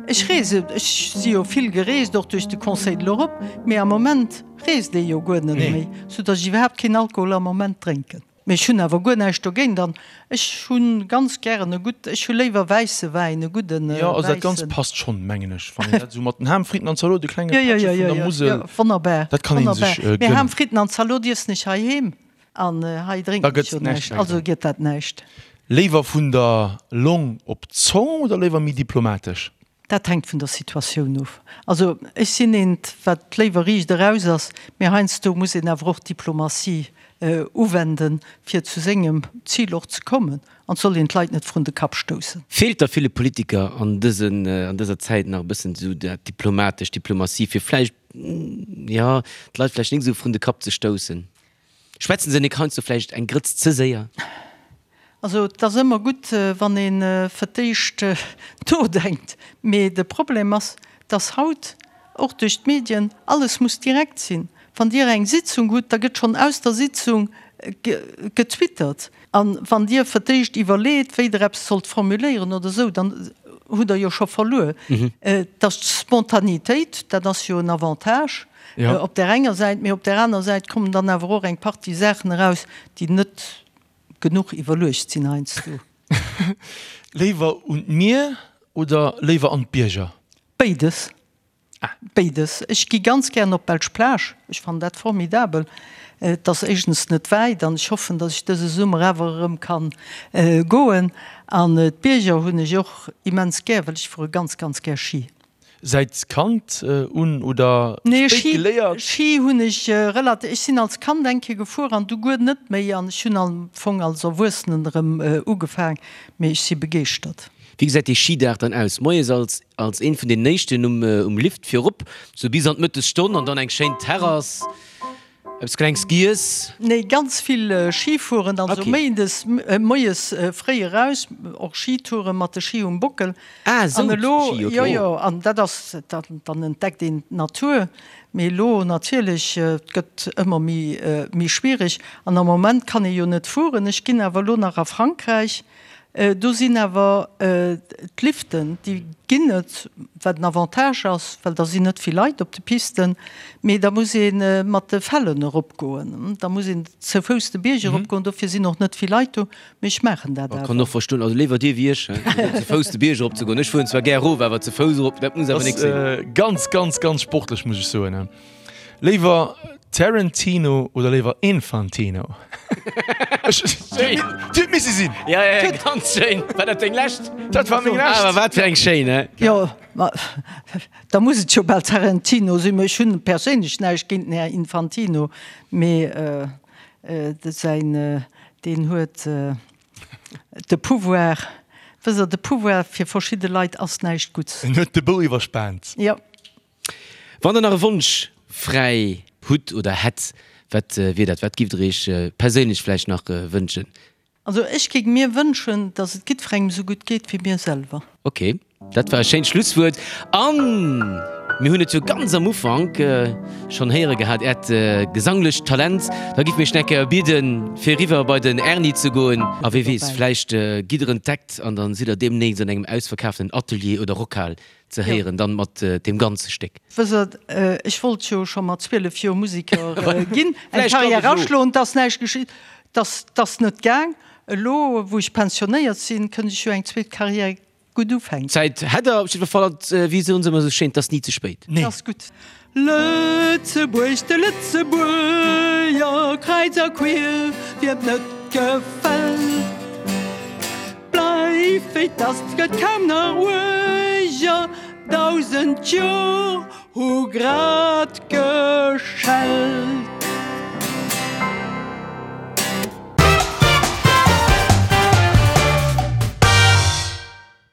ech reese, ech si jo vill gereest, och duerch de Conseil de l'Europe, mee am Moment reest ee jo guer net méi, soudatt ech iwwerhaapt keen Alkohol am Moment drénken. Mee ech hunn awer guer näischt dogéint an ech hu ganz gären e gutt, ech hu léiwer wäisse Wäin, e gudden wäissen. Jo, also dat Ganzt passt schonn, mengen ech, wann een dat esou mat den Ham, Fritten an Zalot, e klenge Pättche vun der Musel, Jo, jo, wonnerbar, dat kann ee sech wonnerbar. Mee Ham, Fritten an Zalot iessen ech heiheem an hei drénken ech jo näischt, also gëtt dat näischt. Léiwer vun der Long op d'Zong oder léiwer méi diplomatesch? Dat hänkt vun der Situatioun of. Also ech sinn eent, wat léiwer riicht eraus ass, mee heiansdo muss een awer och Diplomatie uwenden, fir zu sengem Zil och ze kommen. An et soll een d'Leit net vrun de Kapp stoussen. Feelt da ville Politiker an dësen, an dëser Zäit nach e bëssen esou dat diplomatesch, Diplomatie, fir vläicht, jo, d'Leit vläicht nik esou vrun de Kapp ze stoussen? Schwätzen se nik heiansdo vläicht eng Grëtz ze séier? Also et ass ëmmer gutt, wann ee fir d'éischt nodenkt. Mee de Problem ass, dass haut och duerch d'Medien alles muss direkt sinn. Wann Dir eng Sitzung hutt, da gëtt schonn aus der Sitzung getwittert. A wann Dir fir d'éischt iwwerleet, wéi Der eppes sollt formuléieren oder esou, dann hutt Der jo scho verluer. Dass d'Spontanitéit, dat ass jo en Avantage op där enger Säit, mee op där aner Säit kommen dann awer och eng Partie Saachen eraus, déi net genuch iwwerluecht sinn heiansdo. Léiwer un d'Mier oder léiwer an d'Bierger? Béides. Béides. Ech gi ganz gären op d'Belsch Plage. Ech fannen dat formidabel. Et ass éischtens net wäit an ech hoffen, datt ech dëse Summer awer erëm kann goen. An d'Bierger hunn ech och immens gär, well ech fuere ganz, ganz gär Schi. Säit Kand un oder spéit geléiert? Nee, Schi hunn ech relativ, ech sinn als Kand eng Kéier gefuer an du guer net méi an ech hunn am Fong als Erwuessenen erëm ugefaang, mee ech si begeeschtert. Wéi gesäit dee Schidag dann aus? Moies als als een vun den éischten um um Lift virop, sou bis an d'Mëttesstonn an dann eng schéin Terrass, eppes klengs giess? Nee, ganz vill Schi fueren, also méindes moies fréi eraus, och Schitouren mat de Schi um Bockel. Ah esou, An elo, Schi, ok. jo jo, an dat ass, dann entdeckt een d'Natur. Mee elo natierlech, et gëtt ëmmer méi méi schwiereg an am Moment kann ee jo net fueren. Ech ginn awer elo nach a Frankräich Do sinn awer d'Liften, déi ginn et, wat en Avantage ass, well da sinn net vill Leit op de Pisten, mee da muss ee mat de Fellen eropgoen, da muss een zou Fouss de Bierg eropgoen, dofir sinn och net vill Leit do, mee ech maachen dat awer. Kann och verstoen, also léiwer dir wéi ech, ze Fouss de Bierg eropzegoen. Ech fueren zwar gär erof, awer ze Fouss erop, dat muss awer nik sinn. Ganz, ganz, ganz sportlech, muss ech soen. Léiwer. Tarantino oder léiwer Infantino? Schéin. Déi huet misse sinn. Ja, ja, ganz schéin. War dat deng lescht? Dat war meng lescht. Awer wat fir eng schéin, he? Jo, ma da muss et jo bal Tarantino sinn. Ech hunn perséinlech näischt géint den Här Infantino, mee säin, deen huet de Pouvoir, wësst Der, de Pouvoir fir verschidde Leit ass näischt Gutts. En huet de Bou iwwerspaant. Jo. Wann der nach e Wonsch fräi hutt oder hätt, wat wier dat? Wat giff der iech perséinlech vläicht nach wënschen? Also ech géing mir wënschen, dass et giddferengem esou gutt geet wéi mir selwer. Ok, dat war e schéint Schlusswuert. A mir hunn et jo ganz am Ufank schonn héiere gehat, Äert gesanglecht Talent. Da giff mir iech nach eng Kéier bieden, fir eriwwer bei den Erny ze goen. A wee weess, vläicht gitt der entdeckt an dann sidd der deemnächst an engem ausverkaaften Atelier oder Rockhal ze héieren, dann mat deem ganze Stéck. Wësst Der, ech wollt jo scho mat 12 Joer Museker ginn, eng Carrière aschloen, 't ass näischt geschitt, 't ass net gaang. Elo wou ech pensionéiert sinn, kënnt ech jo eng zweet Carrière gutt ufänken. Zäit hätt Der op jiddwer Fall, an wéi soen se ëmmer esou schéin, 't ass ni ze spéit. Nee. 't ass gutt. Lëtzebuerg, de Lëtzebuerger, kräiz a quier, wiem 't net gefält. Bleif wéi 't ass, 't gëtt kaum nach uerger, 1000 Jor hu grad geschellt.